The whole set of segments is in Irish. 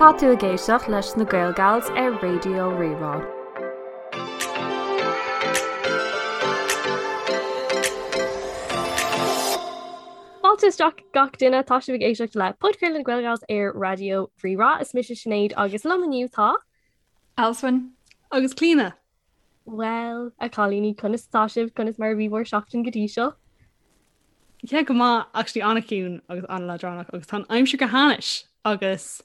Tá tú ag éisteacht leis na Gaelgals ar Raidió Rí-Rá. Fáilte isteach gach duine, tá sibh ag éisteacht le podchraoladh na Gaelgals ar Raidió Rí-Rá. Is mise Sinéad agus liom inniu tá. Alswyn. Agus Clíona. Bhuel, a chailíní, conas atá sibh? Conas mar a bhí bhur seachtain go dtí seo? Yeah, go maith, actually an-chiúin agus an-leadránach agus tá an aimsir go hainnis agus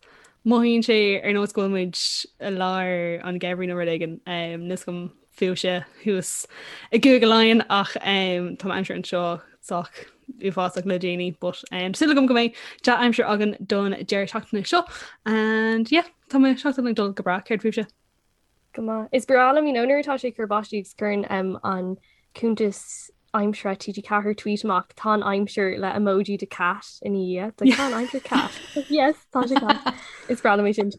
mothaíonn sé ar nós go bhfuil muid i lár an gheimhridh nó rud éigin. Um, níl a fhios agam fúibhse thuas i gCúige Laighean ach um, tá an aimsir anseo sách uafásach le déanaí, but um, súil agam go mbeidh dea-aimsir againn don deireadh seachtaine seo and yeah, tá mo sheachtain ag dul go breá, céard fúibhse? Go maith. Is breá liom, you know, nuair atá sé ag cur báistí agus cuireann um, an cuntas aimsire TG4 tweet amach tá an aimsir le emoji de cat ina dhiaidh. It's like, tá an aimsir cat. Yes, tá sé cat. Is breá liom é sin.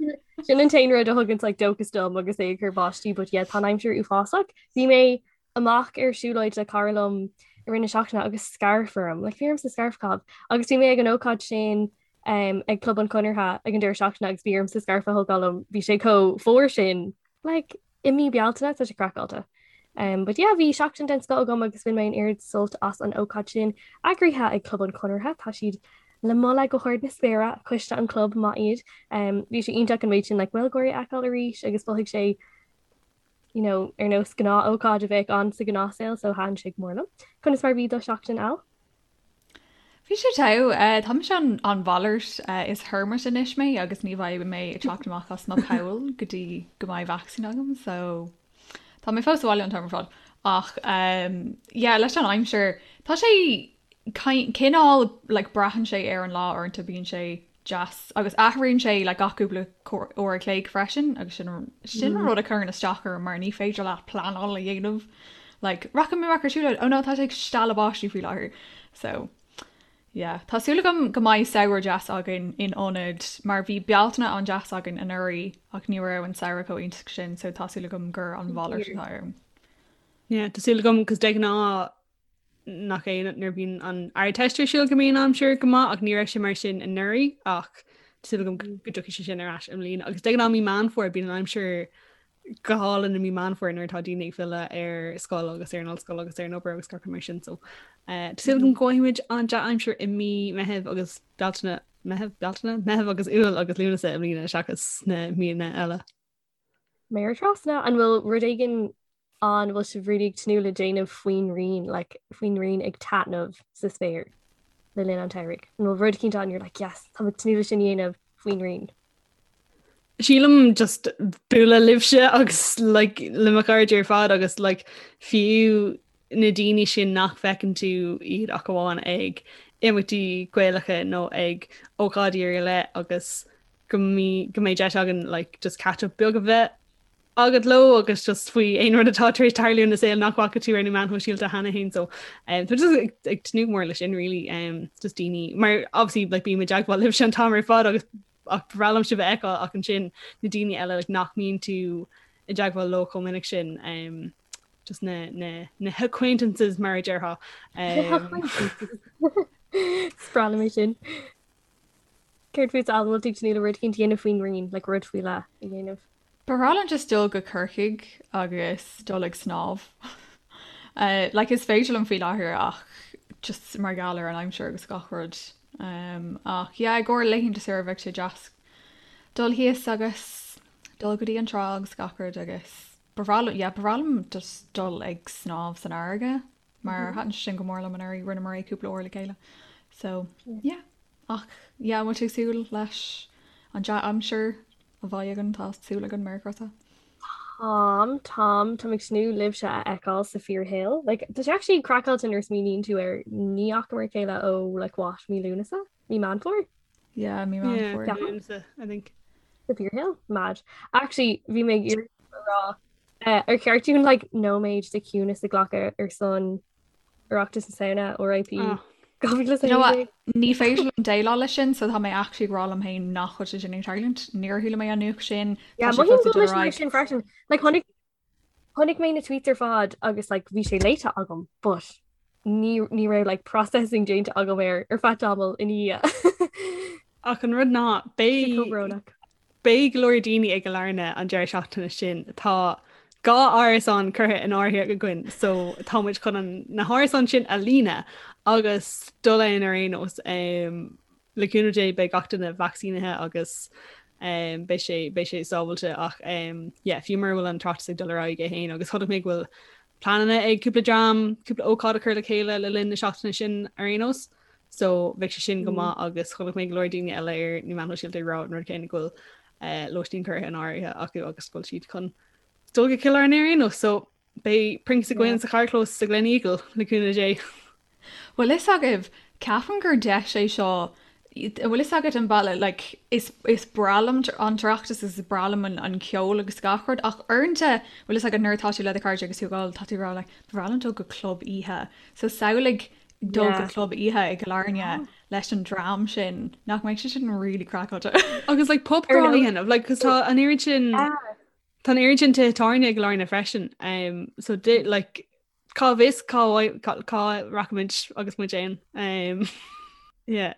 Sin an t-aon rud a thugann like, dóchas dom agus é ag cur báistí, but yeah, tá an aimsir uafásach. Bhí mé amach ar siúlóid le cara liom i rith na seachtaine agus scairf orm, like bhí ormsa scairf a chaitheamh. Agus bhí mé ag an ócáid sin um, ag Club an Chonartha ag an deireadh seachtaine agus bhí ormsa scairf a thógáil liom, bhí sé chomh fuar sin like, i mí Bealtaine tá sé craiceáilte. Um, but yeah, bhí seachtain den scoth agam agus bhain mé an oiread sult as an ócáid sin eagraithe ag Club an Chonartha, tá siad le moladh go hard na spéire, coiste an chlub maith iad. Um, bhí sé iontach an méid sin like, Gaeilgeoirí a fheiceáil arís agus mhothaigh sé you know, ar nós gnáth-ócáid a bheadh ann sa ghnáthshaol so thaitin sé go mór liom. Conas mar bhí do sheachtain Al? Bhí sé togha. Tá mise an an mhalairt. Is hermit anois mé agus ní bheidh mé ag teacht amach as mo poll go dtí go mbeidh vacsaín agam so tá mé fós sa bhaile an t-am ar fad. Ach yeah leis an aimsir tá sé cineál like braitheann sé ar an lá uaireanta bíonn sé deas agus athraíonn sé like gach cúpla uair a chloig freisin agus sin sin an rud a chuireann isteach orm mar ní féidir leat pleanáil a dhéanamh like rachaidh mé amach ar siúlóid oh no tá sé ag stealladh báistí faoi láthair so yeah tá súil agam go mbeidh samhradh deas againn in ionad mar bhí Bealtaine an-deas againn anuraidh ach ní raibh an samhradh chomh iontach sin so tá súil agam gur an mhalairt atá ann. Yeah, tá súil agam cos de ghnáth nach é nuair a bhíonn an Ardteist ar siúl go mbíonn an aimsir go maith ach ní raibh sé mar sin anuraidh ach tá súil agam go dtiocfaidh sé sin ar ais i mbliana agus de ghnáth mí Meán Fómhair bíonn an aimsir go hálainn i mí Meán Fómhair nuair atá daoine ag filleadh ar scoil agus ar an ollscoil agus ar an obair agus gach rud mar sin so eh, tá súil agam go bhfaighidh muid an dea-aimsir i mí Meitheamh agus Bealtaine Meitheamh Bealtaine Meitheamh agus Iúil agus Lúnasa i mbliana seachas na míonna eile. Méar trasna, an bhfuil rud éigin an bhfuil sibh really ag tnúth le déanamh faoin ngrian, like, faoin ngrian ag taitneamh sa spéir le linn an tsamhraidh? An bhfuil rud eicínt ann you're like, yes, tá mé ag tnúth le sin a dhéanamh faoin ngrian? Sílim just bualadh libhse agus like, le mo chairde ar fad agus like, fiú na daoine sin nach bhfeiceann tú iad ach amháin ag imeachtaí Gaelacha nó ag ócáidí ar leith agus go mbeidh deis againn like, just catch up beag a bheith agat leo agus just faoi aon rud atá tar éis tarlú ina saol nach bhfaca tú ar na meáin shóisialta cheana féin so um, tá just ag, ag tnúth mór leis sin really um, just daoine mar obviously like bím i dteagmháil libhse an t-am ar fad agus ach ba bhreá liom sibh a fheiceáil ach ansin na daoine eile like, nach mbíonn tú i dteagmháil leo chomh minic sin um, just na, na, na acquaintances mar a déarfá. Um, Is breá liom é sin. Céard fút Al, an bhfuil tú ag tnúth le rud eicínt a dhéanamh faoin ngrian, like rud faoi leith a dhéanamh? Ba bhreá liom just dul go Corcaigh agus dul ag snámh. Like is féidir liom faoi láthair ach just mar gheall ar an aimsir agus gach rud. Um, ach yeah, i gcomhair laethanta saoire bheadh sé deas dul thíos agus dul go dtí an trá agus gach rud agus ba bhreá liom, yeah, ba bhreá liom just dul ag snámh san fharraige. mar thaitin sé sin go mór liom anuraidh, rinneamar é cúpla uair le chéile. So, yeah. Ach, yeah, an bhfuil tú ag súil leis an dea-aimsir a bheidh againn? Tá súil againn, méar crosta. Táim, táim, táim ag tnúth libhse a fheiceáil sa fíorshaol. Like, tá sé actually craiceáilte nuair a smaoiníonn tú air, ní fhacamar a chéile ó, like, what, mí Lúnasa? Mí Meán Fómhair? Yeah, mí Meán Yeah, Fómhair. Lúnasa, I think. Sa fíorshaol? Mad. Actually, bhí mé ag iarraidh a rá Ar cheart dúinn like nóiméad de chiúnas a ghlacadh ar son Oireachtas na Samhna, RIP 2016? Ní féidir liom déileáil leis sin, so tá mé actually ag rá liom féin nach bhfuil sé sin ag tarlúint. Níor chuala mé an nuacht sin. Yeah, Tá sé mothaím fós go ag dul bhfuil ar mise mar aghaidh. sin freisin. Like chonaic chonaic mé na tweets ar fad agus like bhí sé léite agam, but ní ní raibh like processing déanta agam air ar feadh tamaill ina dhiaidh. Ach an rud ná Sé chomh beidh brónach. Beidh go leor daoine i gCill Airne an deireadh seachtaine sin. Tá 2 árasán curtha in áirithe againn so tá muid chun an, na hárasáin sin a líonadh agus dul ann ar aon nós. Le cúnamh Dé beidh gach duine vacsaínithe agus beidh sé, beidh sé sábhailte ach yeah, fiú mura bhfuil an tOireachtas ag dul ar aghaidh é féin agus chonaic mé go bhfuil pleananna ag cúpla dream cúpla ócáid a chur le chéile le linn na seachtaine sin ar aon nós. So bheadh sé sin go maith agus chonaic mé go leor daoine eile ar na meáin shóisialta ag rá an rud céanna go bhfuil lóistín curtha in áirithe acu agus go bhfuil siad chun dul go Cill Airne ar aon nós. So beidh Prince againn sa charrchlós sa Gleneagle le cúnamh Dé. Bhfuil fhios agaibh, ceapaim gur deis é seo, bhfuil fhios agat an bealach, like, is, is breá liom an tOireachtas is breá liom an, an ceol agus gach rud ach uaireanta, bhfuil fhios agat nuair atá tú le do chairde agus tú ag ól, tá tú ag rá like, ba bhreá liom dul go club oíche. So samhlaigh dul go club oíche i gCill Airne leis an dream sin, nach mbeidh sé sin really craiceáilte. Agus like pub crawl a dhéanamh, like cos tá an oiread sin, tá an oiread sin tithe tábhairne i gCill Airne freisin, um, so di, like cá bhfios cá, cá, cá rachaimid agus muid ann. Um, yeah.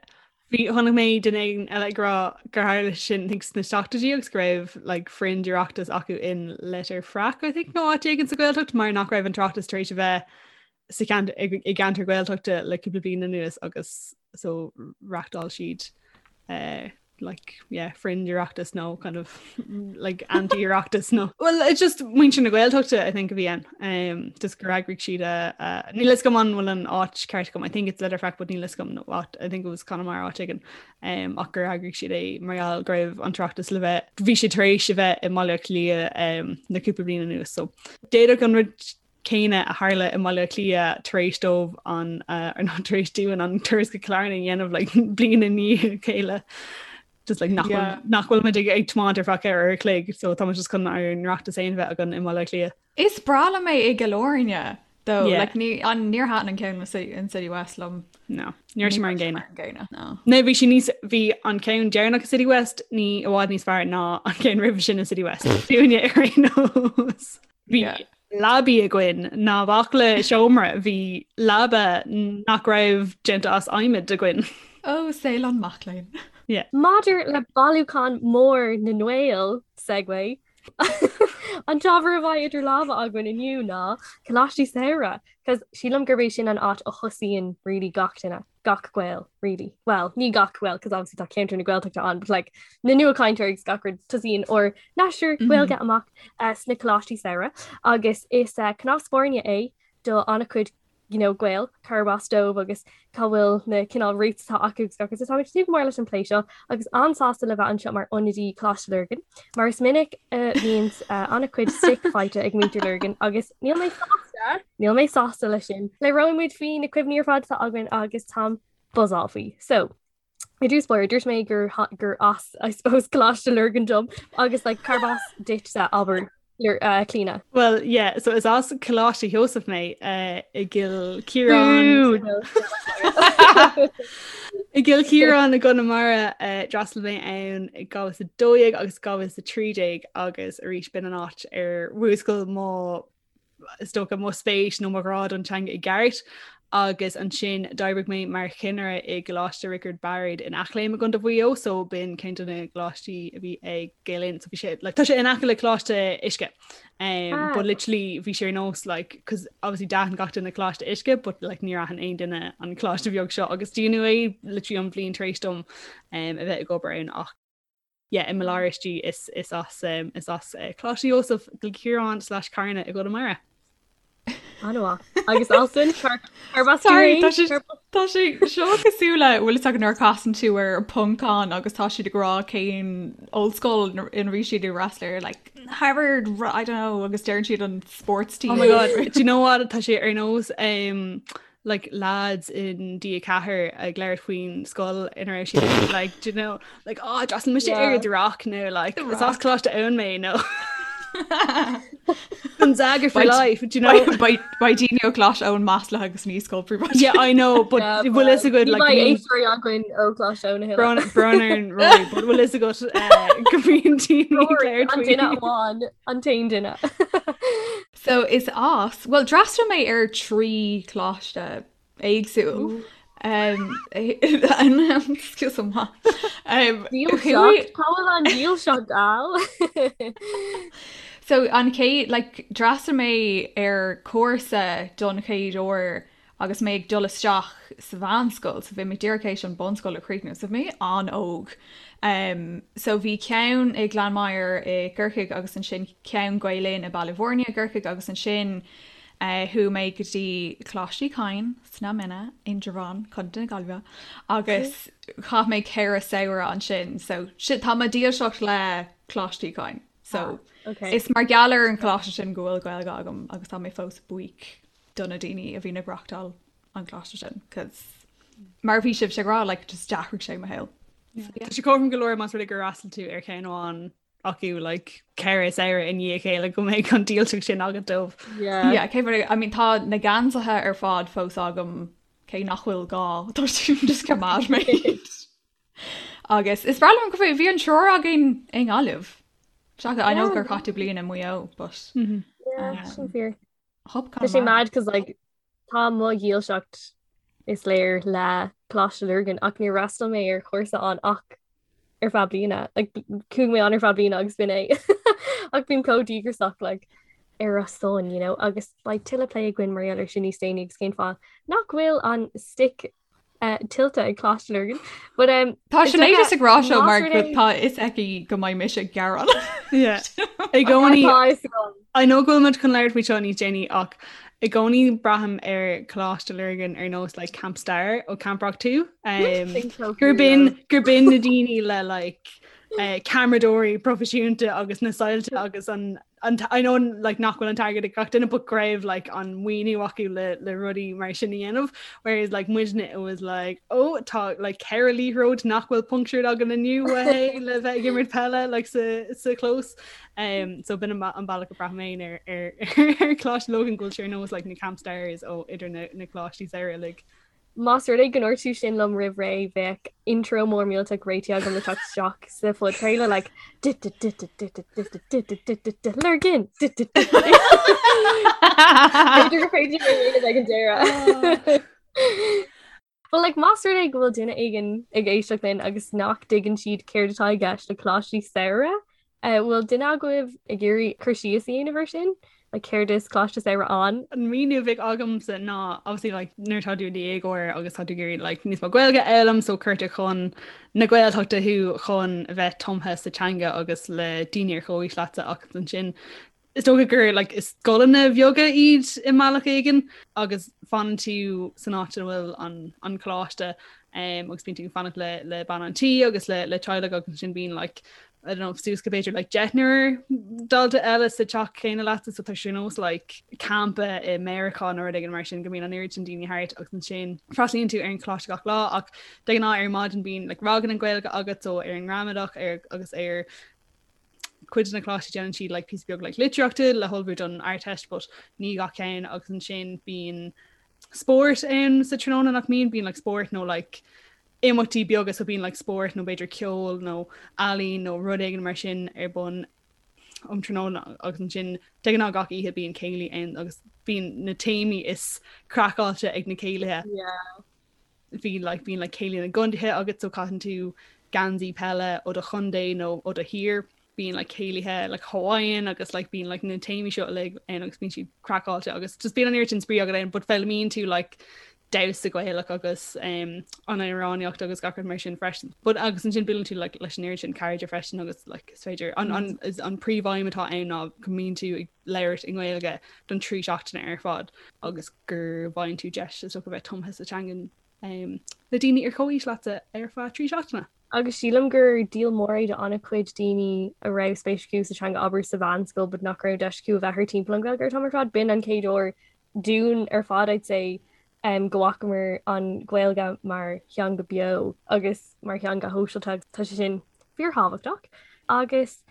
Bhí chonaic mé duine éigin eile ag rá gur tharla sin I think sna seachtóidí agus go raibh like fringe Oireachtas acu in Leitir Fraic I think nó áit éigin sa Ghaeltacht mar nach raibh an tOireachtas tar éis a bheith sa cheant i gceantar Gaeltachta le cúpla bliain anuas agus so reachtáil siad uh, like yeah fringe Oireachtas nó kind of like anti-Oireachtas nó well it's just muintir na Gaeltachta I think a bhí ann um, just gur eagraigh siad a uh, níl fhios agam an bhfuil an áit ceart agam I think it's Leitir Fraic but níl fhios agam nó áit I think it was Conamara áit éigin um, ach gur eagraigh siad é mar gheall go raibh an tOireachtas le bheith bhí sé tar éis a bheith i mBaile Átha Cliath um, na cúpla bliain anuas so d'fhéadfadh an rud céanna a tharla i mBaile Átha Cliath tar éis dóibh an nó tar éis dúinn an turas go Cill Airne a dhéanamh like bliain i ndiaidh a chéile. Just like nach yeah. nach bhfuil muid ag ag tiomáint ar feadh ceithre uair a chloig, so tá muid just chun ár n-Oireachtas féin a bheith againn i mBaile Átha Cliath. Is breá liom é i gCill Airne though. Yeah. Like, ní, an, níor thaitin an ceann in City West liom. No, ní raibh sé mar an gcéanna. Mar an gcéanna, no. No, bhí sé níos bhí an ceann deireanach i City West ní i bhfad níos fearr ná an ceann roimhe sin i City West. Dúinne ar aon nós. Bhí leabaí againn ná bac le seomra, bhí leaba nach raibh déanta as adhmad againn. Ó, saol an mac léinn. Yeah. Maidir le bailiúchán mór na nGael, segue, an t-ábhar a bheidh idir lámha againn inniu ná Coláistí Samhraidh, 'cause sílim gurb é sin an áit a thosaíonn really gach duine. gach Gael really. Well, ní gach Gael cos obviously tá ceantar na Gaeltachta ann, but like na nuachainteoirí agus gach rud tosaíonn ár n-aistear Gaeilge amach uh, sna coláistí samhraidh agus is uh, cnámh spairne é do an-chuid you know, Gael cárb as dóibh agus cá bhfuil na cineál roots atá acu agus gach rud. So táimid ag tnúth go mór leis an plé seo agus an-sásta le bheith anseo mar ionadaí Coláiste Lurgan mar is minic a bhíonn uh, an-chuid stick faighte ag muintir Lurgan agus níl mé sásta Níl mé sásta leis sin. Labhróidh muid faoi na cuimhní ar fad atá againn agus táim buzzálta faoi. So, i dtús báire, dúirt mé gur gur as, I suppose, Coláiste Lurgan dom agus like, cárb as duitse abair uh, Clíona? Well, yeah, so is as Coláiste Sheosaimh mé uh, i gCill Chiaráin. I gCill Chiaráin i gConamara uh, d'fhreastail mé ann i 2012 agus 2013 agus arís b'in an áit ar mhúscail mo is dócha, mo spéis nó mo ghrá don teanga i gceart agus ansin d'oibrigh mé mar chinnire i gColáiste Riocard Bairéad in Eachléim i gContae Mhaigh Eo so b'in ceann de na coláistí a bhí ag Gael Linn so bhí sé like, tá sé in aice le Coláiste Uisce um, ah. but literally bhí sé ar nós like cos obviously d'aithin gach duine Coláiste Uisce but like níor aithin aon duine an coláiste bheag seo agus dúnadh é literally an bhliain tar éis dom um, a bheith ag obair ann ach yeah, i mo lár istigh is is as um, is as uh, Coláiste Sheosaimh Cill Chiaráin slash Carna i gConamara. An-mhaith. Agus Alswyn cárb as Sorry, tá sé tá sé seo cosúil le bhfuil fhios agat nuair a chasann tú ar Poncán agus tá siad ag rá cén ollscoil ina bhí siad ag freastal air like Harvard I don't know agus deireann siad an sports team. Oh my god, do you know what tá sé ar nós um, like lads in D4 ag labhairt faoin scoil ina raibh siad like do you know like oh d'fhreastail mise ar The Rock nó like is as Coláiste Eoin mé nó Gonzaga for life do you know Beidh daoine ó Choláiste Eoin maslaithe agus ní scoil príobháideach. Yeah I know but bhfuil fhios agat like éisteoirí againn ó Choláiste Eoin a thuilleadh. Brón ar Rory but bhfuil fhios agat eh, go mbíonn daoine ag labhairt An duine amháin an t-aon duine. So is as, bhuel d'fhreastail mé ar 3 choláiste éagsúil. Excuse me. Dílseacht, cá bhfuil an dílseacht Al? So an chéad, like, d'fhreastail mé ar cúrsa don chéad uair agus mé ag dul isteach sa mheánscoil, so bhí mé díreach théis an bunscoil a chríochnú, so bhí mé an-óg. Um, so bhí ceann i Gleann Maghair i gCorcaigh agus ansin ceann Gael Linn i Baile Bhúirne i gCorcaigh agus ansin uh, chuaigh mé go dtí Coláiste Uí Chadhain sna Mine, Indreabhán, Contae na Gaillimhe agus chaith mé 4 samhradh ansin, so sin, tá mo dhílseacht le Coláiste Uí Chadhain. So ah, okay. is mar gheall ar an choláiste sin go bhfuil Gaeilge agam agus tá mé fós buíoch do na daoine a bhíonn ag reáchtáil an choláiste sin, cos mar bhí sibhse ag rá, like, just d'athraigh sé mo shaol. Tá sé cothrom go leor más rud é gur fhreastail tú ar cheann amháin acu like, 4 samhradh i ndiaidh a chéile go mbeidh an dílseacht sin agat dóibh. Yeah. Yeah, cé I mean, tá na geansaithe ar fad fós agam cé nach bhfuil gá tá siad just coimeád mé. Agus is breá liom go bhí an triúr againn i nGaillimh. Seachas I know gur chaith tú bliain i Maigh Eo, but Yeah, sin fíor. Tá sé mad cos like tá mo dhílseacht is léir le Coláiste Lurgan ach níor fhreastail mé ar chúrsa ann ach ar feadh bliana. Like chuaigh mé ann ar feadh bliana agus b'in é. Ach bím chomh díograiseach like ar a son, you know, agus beidh tuilleadh plé againn mar gheall air sin níos déanaí agus cén fáth nach bhfuil an stick tuillte ag Coláiste Lurgan. But um, Tá Sinéad just ag rá seo mar go tá fhios aici go mbeidh mise ag gearán. Yeah. I gcónaí I know go bhfuil muid chun labhairt faoi seo níos déanaí ach i gcónaí braithim ar Coláiste Lurgan ar nós like Camp Star ó Camp Rock 2 um, gur b'in gur b'in na daoine le like uh, ceamaradóirí proifisiúnta agus na soilse agus an an I know like nach bhfuil an t-airgead ag gach duine but go raibh like an maoiniú acu le le rudaí mar sin a dhéanamh whereas like muidne it was like oh tá like ceithre liathróid nach bhfuil punctured againn inniu hey le bheith ag imirt peile like sa sa chlós um so b'in an an bealach a braithim féin ar ar ar Coláiste Lurgan go bhfuil sé ar nós like na camp stars ó idir na na coláistí samhraidh uilig. Más rud é go ndúirt tú sin liom roimh ré, bheadh intro mór millteach réitithe agam le teacht isteach sa phodchraoladh like Lurgan! B'fhéidir gur féidir é a dhéanamh ag an deireadh. But like más rud é go bhfuil duine éigin ag éisteacht linn agus nach dtuigeann siad céard atá i gceist le coláistí samhraidh, Bhfuil duine agaibh ag iarraidh cur síos a dhéanamh air sin? Like céard is Coláiste Samhraidh ann? An míniú a bheadh agamsa ná obviously like nuair atá tú i do dhéagóir agus tá tú ag iarraidh like níos mó Gaeilge a fhoghlaim so cuirtear chun na Gaeltachta thú chun a bheith tumtha sa teanga agus le daoine ar chomhaois leatsa ach ansin is dócha gur like is scoileanna bheaga iad i mbealach éigin agus fanann tú san áit ina bhfuil an an coláiste um, agus bíonn tú ag fanacht le le bean an tí agus le le teaghlach agus ansin bíonn like I don't know, suas go b'fhéidir like deichniúr dalta eile sa teach céanna leatsa so tá sé ar nós like campa i Meiriceá nó rud éigin mar sin go mbíonn an oiread sin daoine thart agus ansin freastalaíonn tú ar an choláiste gach lá ach de ghnáth ar maidin bíonn like ranganna Gaeilge agat so ar an ngramadach ar agus ar cuid de na coláistí déanann siad like píosa beag like litríochta le hullmhú don Ardteist but ní gach ceann agus ansin bíonn spórt ann sa tráthnóna nach mbíonn bíonn like spórt nó like imeachtaí beaga so bíonn like spórt nó b'fhéidir ceol nó ealaín nó rud éigin mar sin ar bun um tráthnóna agus ansin de ghnáth gach oíche bíonn céilí ann agus bíonn na téamaí is craiceáilte ag na céilithe. Yeah. Bhí like bíonn like céilí na gcontaetha agat so caitheann tú geansaí peile ó do chontae nó ó do thír. Bíonn like céilithe like Hawaiian agus like bíonn like na téamaí seo uilig ann agus bíonn siad craiceáilte agus just bíonn an oiread sin spraoi agat ann but foghlaimíonn tú like damhsa Gaelach agus um, an amhránaíocht agus gach rud mar sin freisin. But agus ansin buaileann tú like, leis an oiread sin cairde freisin agus like, is féidir an, an, is an príomhaidhm atá ann ná go mbíonn tú ag labhairt i nGaeilge don trí seachtaine ar fad agus go bhfaigheann tú deis is dócha bheith tumtha sa teanga um, le daoine ar chomhaois leatsa ar feadh trí seachtaine. Agus sílim gur díol mór é do an-chuid daoine a raibh spéis acu sa teanga abair sa mheánscoil but nach raibh deis acu a bheith thart timpeall an Ghaeilge an t-am ar fad. B'in an chéad uair dúinn ar fad I'd say go bhfacamar an Ghaeilge mar theanga beo agus mar theanga shóisialta agus tá sé sin fíorthábhachtach. Agus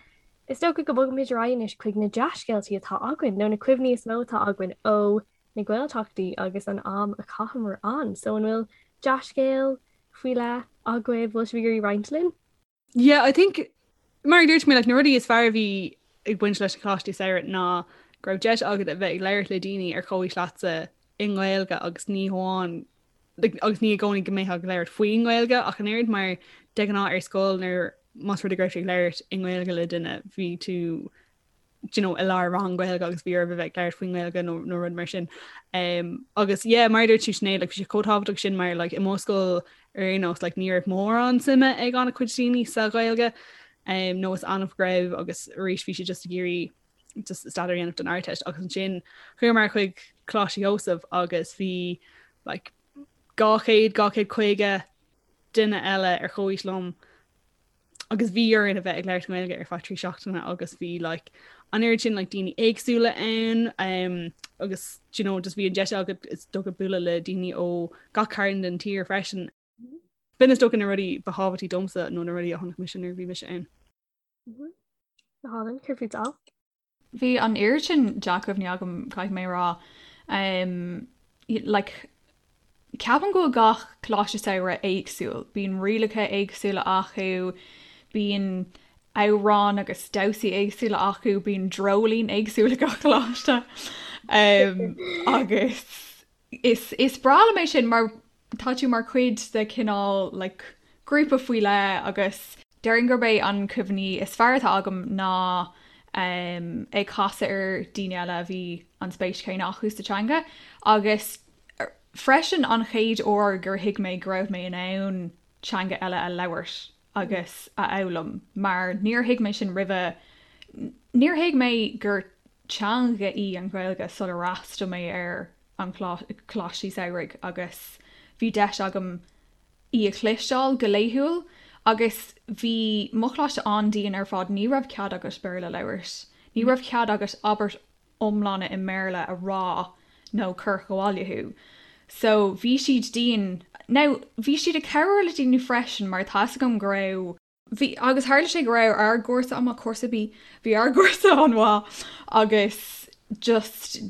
is dócha go mbogfaimid ar aghaidh anois chuig na dea-scéaltaí atá againn nó na cuimhní is mó atá againn ó na Gaeltachtaí agus an am a chaitheamar ann. So an bhfuil dea-scéal faoi leith agaibh, bhfuil sibh ag iarraidh roinnt linn? Yeah, I think mar a dúirt mé like, na rudaí is fearr a bhí ag baint leis na coláistí samhraidh ná go raibh deis agat a bheith ag labhairt le daoine ar chomhaois leatsa i nGaeilge agus ní hamháin. Like, agus ní i gcónaí go mbeifeá ag labhairt faoin nGaeilge ach an oiread mar de ghnáth ar scoil nuair más rud é go raibh tú ag labhairt i nGaeilge le duine bhí tú you know, i lár rang Gaeilge agus bhí oraibh a bheith ag labhairt faoin nGaeilge nó, nó rud mar sin. Um, agus yeah, mar a dúirt tú Sinéad, like, bhí sé chomh tábhachtach sin mar like, i mo scoil ar aon nós like, ní raibh mórán suime ag an-chuid daoine sa Ghaeilge um, nó is annamh go raibh agus arís bhí siad just ag iarraidh just staidéar a dhéanamh don Ardteist agus ansin chuamar chuig Coláiste Sheosaimh agus bhí like, 200 250 duine eile ar chomhaois liom agus bhí orainn a bheith ag labhairt Gaeilge ar feadh 3 seachtaine agus bhí like, an oiread sin like, daoine éagsúla ann um, agus you know, just bhí an deis agat is dócha bualadh le daoine ó gach cearn den tír freisin. B'in is dócha na rudaí ba thábhachtaí domsa nó na rudaí a chonaic mise nuair a bhí mise ann. Go hálainn, céard fút Al? Bhí an oiread sin dea-chuimhní agam, caithfidh mé a rá. Like, ceapaim go bhfuil gach coláiste samhraidh éagsúil. Bíonn rialacha éagsúla acu, bíonn amhráin agus damhsaí éagsúla acu, bíonn dreoilín éagsúil ag gach coláiste. Agus Is is breá liom é sin mar tá tú mar chuid de chineál like grúpa faoi leith agus déarfainn gurb é an cuimhní is fearr atá agam ná um, ag casadh ar daoine eile a bhí an spéis chéanna acu sa teanga agus freisin an chéad uair gur thuig mé go raibh mé in ann teanga eile a labhairt agus a fhoghlaim mar níor thuig mé sin roimhe, níor thuig mé gur teanga í an Ghaeilge sular fhreastail mé ar an choláistí samhraidh agus bhí deis agam í a chloisteáil go laethúil agus bhí mo choláiste an-dian ar fad, ní raibh cead agat Béarla a labhairt, ní raibh cead agat abairt iomlána i mBéarla a rá nó cuireadh abhaile thú. So bhí siad dian. Now bhí siad ag cabhrú le daoine freisin mar tá 'fhios agam go raibh, bhí, agus tharla sé go raibh ár gcúrsa an-mhaith, cúrsa B, bhí ár gcúrsa an-mhaith agus just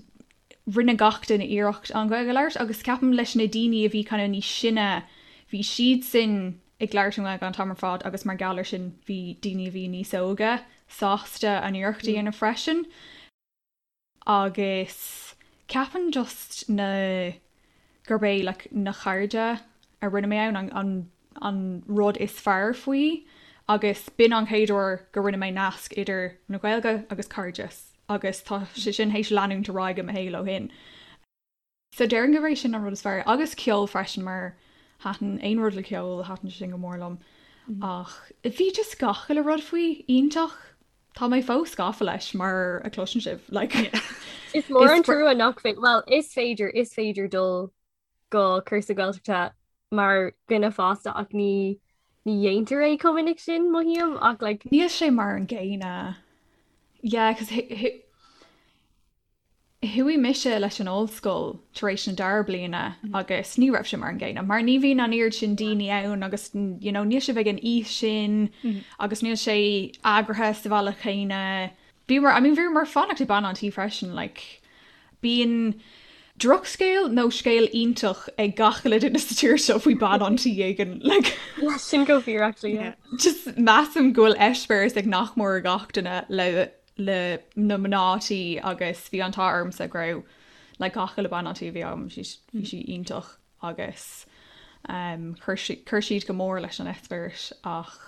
rinne gach duine iarracht an Ghaeilge a labhairt agus ceapaim leis na daoine a bhí kind of níos sine, bhí siadsan ag labhairt an Ghaeilge an t-am ar fad agus mar gheall ar sin bhí daoine a bhí níos óige sásta an iarracht a dhéanamh freisin. Agus ceapaim just na, gurb é like na cairde a rinne mé ann an, an, an rud is fearr faoi agus b'in an chéad uair go rinne mé nasc idir na Gaeilge agus cairdeas agus tá sé sin théis leanúint ar aghaidh i mo shaol ó shin. So déarfainn gurb é sin an rud is fearr. Agus ceol freisin mar thaitin aon rud le ceol, thaitin sé sin go mór liom. Ach bhí just gach uile rud faoi iontach. Tá mé fós gafa leis mar a chloiseann sibh. Like, Is mór an trua nach féidir, well, is féidir, is féidir dul go cúrsa Gaeltachta mar dhuine fásta ach ní ní dhéantar é chomh minic sin, mothaím, ach like, Níl sé mar an gcéanna. Yeah, 'cause Chuaigh mise leis an ollscoil tar éis na dara bliana agus ní raibh sé mar an gcéanna mar ní bhíonn an oiread sin daoine ann agus you know níl sibh ag an aois sin agus níl sé eagraithe sa bhealach chéanna. Bhíomar, I mean bhíomar ag fanacht ag bean an tí freisin like bíonn drochscéal nó scéal iontach ag gach uile duine sa tír seo faoi bean an tí éigin like. Yeah, sin go fíor actually, yeah. Just measaim go bhfuil eispéireas ag nach mór gach duine le le na mná tí agus bhí an t-ádh ormsa go raibh like gach uile bean an tí a bhí agam bhí bhí sí iontach agus um, chuir sí chuir siad go mór leis an eispéireas ach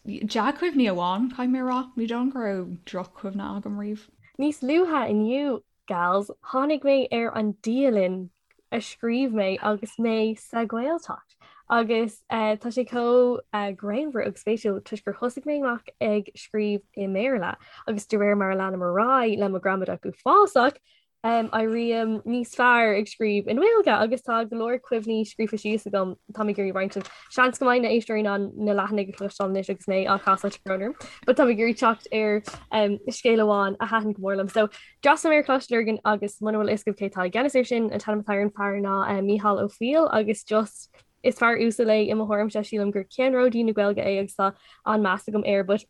dea-chuimhní amháin caithfidh mé a rá, ní dóigh liom go raibh droch-chuimhne agam riamh. Níos luaithe inniu, gals, tháinig mé ar an dialann a scríobh mé agus mé sa Ghaeltacht. Agus tá sé chomh greannmhar agus spéisiúil toisc gur thosaigh mé amach ag scríobh i mBéarla agus de réir mar a leanaim ar aghaidh le mo ghramadach uafásach, éirím níos fearr ag scríobh i nGaeilge agus tá go leor cuimhní scríofa síos agam tá mé ag iarraidh roinnt libh. Seans go mbeidh na éisteoirí in ann na leathanaigh a chloisteáil anois agus mé á casadh tá brón orm, but tá mé ag iarraidh teacht ar scéal amháin a thaitin go mór liom. So, D'fhreastail mé ar Choláiste Lurgan agus muna bhfuil a fhios agaibh cé atá i gceannas air sin, an t-ainm atá ar an fear ná Mícheál Ó Foighil agus just is fear uasal é i mo thuairimse, sílim gur ceannródaí na Gaeilge é agus tá an-meas agam air but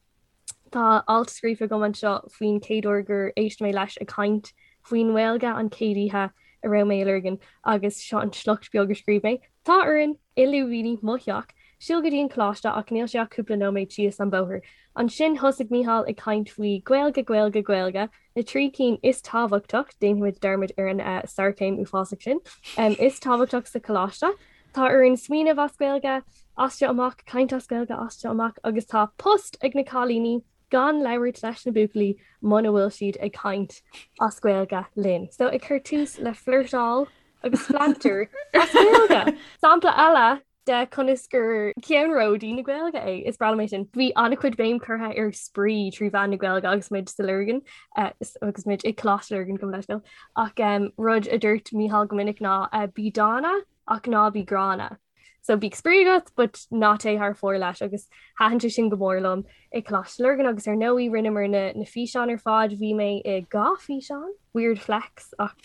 tá alt scríofa agam anseo faoin chéad uair gur éist mé leis ag caint faoin nGaeilge an chéad oíche a raibh mé i Lurgan agus seo an sliocht beag a scríobh mé. Tá orainn i lúibíní mo theach. Siúl go dtí an coláiste ach níl sé ach cúpla nóiméad síos an bóthar. Ansin thosaigh Mícheál ag caint faoi Gaeilge, Gaeilge, Gaeilge, na 3 cinn is tábhachtach, déanfaimid dearmad ar an sarchéim uafásach sin, is tábhachtach sa choláiste. Tá orainn smaoineamh as Gaeilge, as seo amach, caint as Gaeilge as seo amach agus tá post ag na cailíní gan labhairt leis na buachaillí muna bhfuil siad ag caint as Gaeilge linn. So ag cur tús le flirteáil agus flanter as Gaeilge. Sampla eile de conas gur ceannródaí na Gaeilge é. Is breá liom é sin. Bhí an-chuid béim curtha ar spraoi trí mheán na Gaeilge agus muid sa Lurgan agus muid i Coláiste Lurgan gabh mo leithscéal. Ach rud a dúirt Mícheál go minic ná bí dána ach ná bí gránna. So bíodh spraoi agat but ná téigh thar fóir leis agus thaitin sé sin go mór liom i Coláiste Lurgan agus ar ndóigh rinneamar na na físeáin ar fad. Bhí mé i dhá físeán, weird flex ach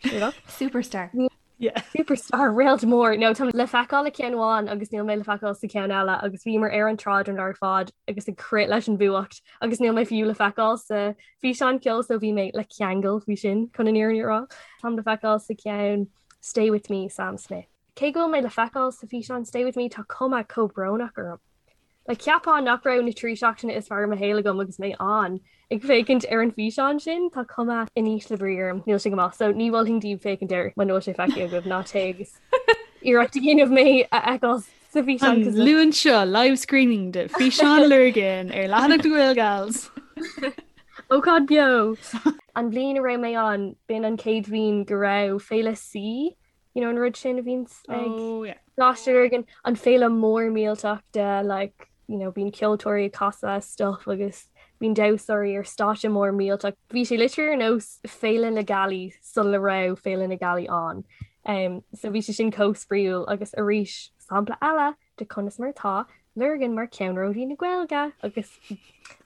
sure look. Superstar. Yeah. Superstar réalt mór. No, táim le feiceáil i ceann amháin agus níl mé le feiceáil sa ceann eile agus bhíomar ar an tsráid an lá ar fad agus ag crith leis an bhfuacht agus níl mé fiú le feiceáil sa físeán ceoil so bhí mé le ceangal faoi sin chun an fhírinne a rá. Táim le feiceáil sa ceann Stay With Me, Sam Smith. Cé go bhfuil mé le feiceáil sa físeán Stay With Me tá cuma chomh brónach orm. Like, cheapfá nach raibh na 3 seachtaine is fearr i mo shaol agam agus mé ann ag féachaint ar an bhfíseán sin, tá cuma in ísle brí orm, níl sé go maith, so ní mholfainn daoibh féachaint air muna bhfuil sé feicthe agaibh, ná téigh agus iarracht a dhéanamh mé a fheiceáil sa bhfíseán. An Luan seo, live screening de Físeán Lurgan ar leathanach na Gaelgals! Ócáid beo! An bhliain a raibh mé ann, b'in an chéad bhliain go raibh Féile C you know an rud sin a bhíonns ag oh, yeah. Coláiste Lurgan an féile mór millteach de like you know bíonn ceoltóirí ag casadh stuff agus bíonn damhsóirí ar stáitse mór millteach. Bhí sé literally ar nós Féile na Gealaí sula raibh Féile na Gealaí ann. Um, so bhí sé sin chomh spraíúil agus arís sampla eile de conas mar atá Lurgan mar ceannródaí na Gaeilge agus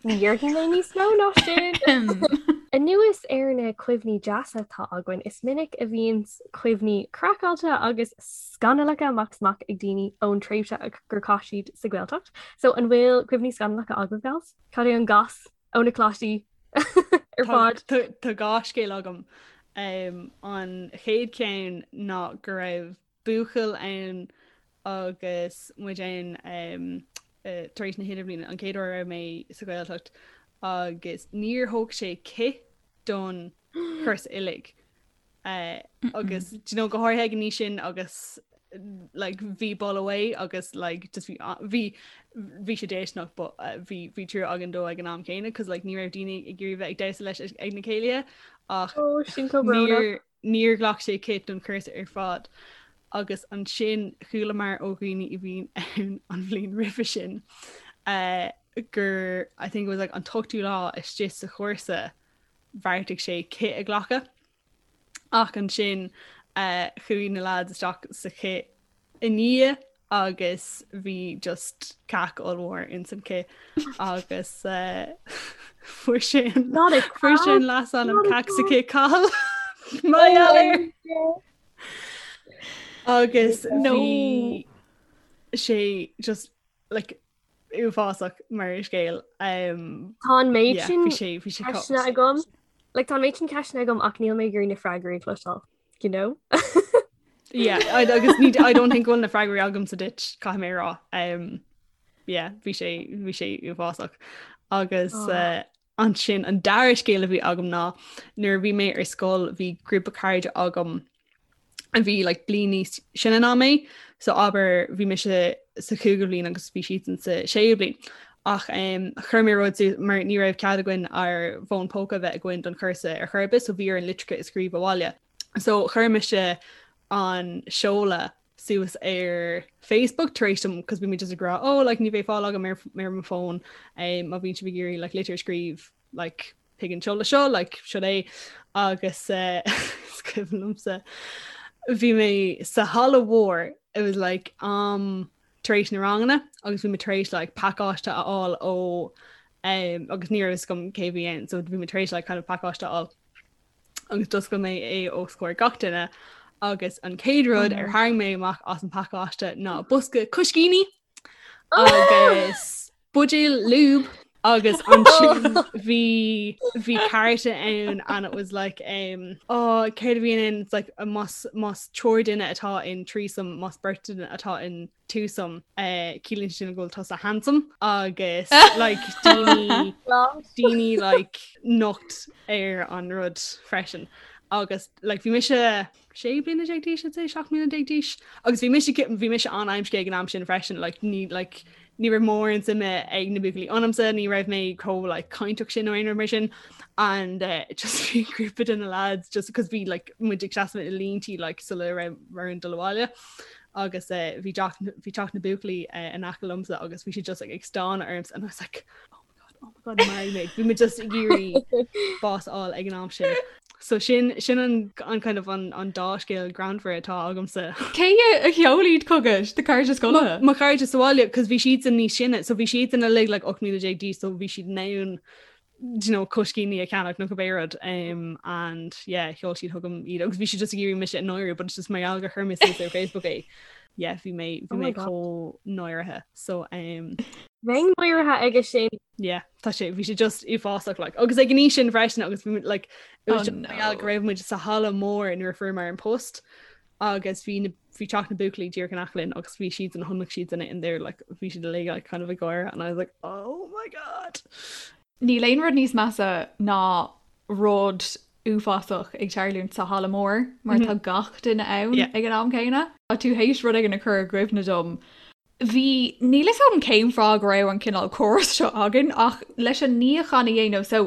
ní dhéarfaidh mé níos mó ná sin. Anuas ar na cuimhní deasa atá againn, is minic a bhíonn cuimhní craiceáilte agus scannalacha amach is amach ag daoine ón tréimhse gur chaith siad sa Ghaeltacht. So an bhfuil cuimhní scannalacha agaibh, gals? Cad é an gas ó na coláistí ar fad? Tá dhá scéal agam. An chéad cheann ná go raibh buachaill ann agus muid ann tar éis na hidirbhliana, an chéad uair a raibh mé sa Ghaeltacht agus níor thóg sé cith don chúrsa uilig. Agus do you know, go háirithe ag an aois sin agus like bhí boladh uaidh agus like just bhí bhí bhí sé déistineach but bhí bhí trua againn dó ag an am céanna cos like ní raibh daoine ag iarraidh bheith ag damhsa leis ag na céilithe ach Oh, sin chomh brónach. níor Níor ghlac sé cith don chúrsa ar fad agus ansin chualamar ó dhaoine a bhí ann an bhliain roimhe sin gur I think it was like an t-ochtú lá istigh sa chúrsa bheartaigh sé cith a ghlacadh ach ansin chuaigh na lads isteach sa chith i ndiaidh agus bhí just cac ollmhór ins an cith agus fuair sé an fuair sé an leasainm cac sa chith Cathal mar gheall air. Agus bhí sé just like uafásach mar scéal. Tá an méid sin ceisteanna agam. Like tá an méid sin ceisteanna agam ach níl mé ag iarraidh na freagraí a chloisteáil. You know? Yeah, I, agus ní, I don't think go bhfuil na freagraí agamsa duit, caithfidh mé a rá. Um, yeah, bhí sé, bhí sé uafásach. Agus oh. uh, ansin an dara scéal a bhí agam ná nuair a bhí mé ar scoil bhí grúpa cairde agam a bhí like, bliain níos sine ná mé, so abair bhí mise sa chúigiú bliain agus bhí siadsan sa séú bliain. Ach um, chuir mé rud mar ní raibh cead againn ár bhfón póca a bheith againn don chúrsa ar chor ar bith, so bhí orainn litreacha a scríobh abhaile. So chuir mise an seoladh suas ar Facebook tar éis dom cos bhí mé just ag rá oh like ní bheidh fáil agam ar ar mo fón um, má bhíonn sibh ag iarraidh like litir a scríobh like chuig an seoladh seo like seo é agus uh, is cuimhin liomsa bhí mé sa halla mhór it was like um tar éis na ranganna agus bhí mé tar éis like pacáiste a fháil ó um, agus ní raibh fhios agam cé bhí ann so bhí mé tar éis like kind of pacáiste a fháil agus d'oscail mé é os comhair gach duine agus an chéad rud ar tharraing mé amach as an pacáiste ná bosca coiscíní agus buidéal lube. Agus ansin bhí bhí cárta ann and it was like um, oh, céard a bhí ann it's like más más triúr duine atá in threesome más beirt duine atá in twosome uh, ciallaíonn sin go bhfuil tusa handsome agus like daoine daoine like nocht ar an rud freisin agus like bhí mise 16 bliana d'aois I'd say 17 mbliana d'aois agus bhí mise bhí mise an-amscaí ag an am sin freisin like ní like ní raibh mórán suime ag na buachaillí ionamsa ní raibh mé chomh like cainteach sin nó aon rud mar sin and uh, just bhí grúpa de na lads just because bhí like muid ag seasamh i líntí like sula raibh orainn dul abhaile agus uh, bhí bhí teach na buachaillí uh, in aice liomsa agus bhí siad just like, ag stánadh ormsa and I was like oh oh my god maraigh mé bhí mé just ag iarraidh bás a fháil ag an am sin. So sin sin an an kind of an an dá scéal greannmhar atá agamsa. Cé a sheol iad chugat do chairde scoile? Mo chairde sa bhaile cos bhí siadsan níos sine so bhí siadsan uilig like 18 mbliana d'aois so bhí siad in ann do you know coiscíní a cheannach nó cibé rud um, and yeah sheol siad chugam iad agus bhí siad just ag iarraidh mise a náiriú but it's just mar gheall gur chuir mé suas ar Facebook é. Yeah bhí mé bhí oh mé chomh náirithe so um, Bheinn náirithe aige sin. Yeah, tá sé bhí sé just uafásach like agus ag an aois sin freisin agus bhí like it was oh, just no. go raibh muid sa halla mór nuair a fuaireamar an post agus bhí na bhí teach na buachaillí díreach in aice linn agus bhí siad an chonaic siad in in there like bhí siad uilig like kind of ag gáire and I was like oh my god. Níl aon rud níos measa ná rud uafásach ag tarlúint sa halla mór mar tá gach duine ann ag an am céanna. Tá tú théis rud éigin a chur i gcuimhne dom Bhí, níl fhios agam cén fáth go raibh an cineál córas seo againn ach leis an níochán a dhéanamh so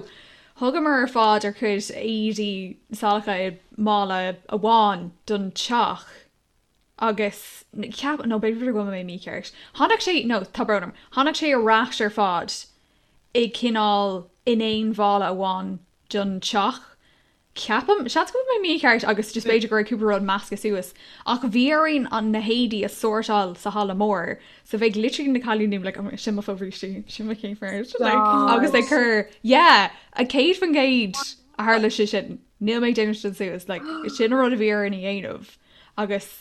thugamar ar fad ár gcuid éadaí salacha i mála amháin don teach agus cheap, nó b'fhéidir go bhfuil mé mícheart, tháinig sé, no tá brón orm, tháinig sé ar ais ar fad i cineál in aon mhála amháin don teach Ceapaim, seans go bhfuil mé mícheart agus just b'fhéidir go raibh cúpla rud measctha suas, ach bhí orainn an na héadaí a sórtáil sa halla mór so bheadh literally na cailíní like oh my sin mo fobhrístí, sin mo chéimfear like agus ag cur yeah 100% a tharla sé sin, níl mé ag déanamh sin suas like sin an rud a bhí orainn a dhéanamh agus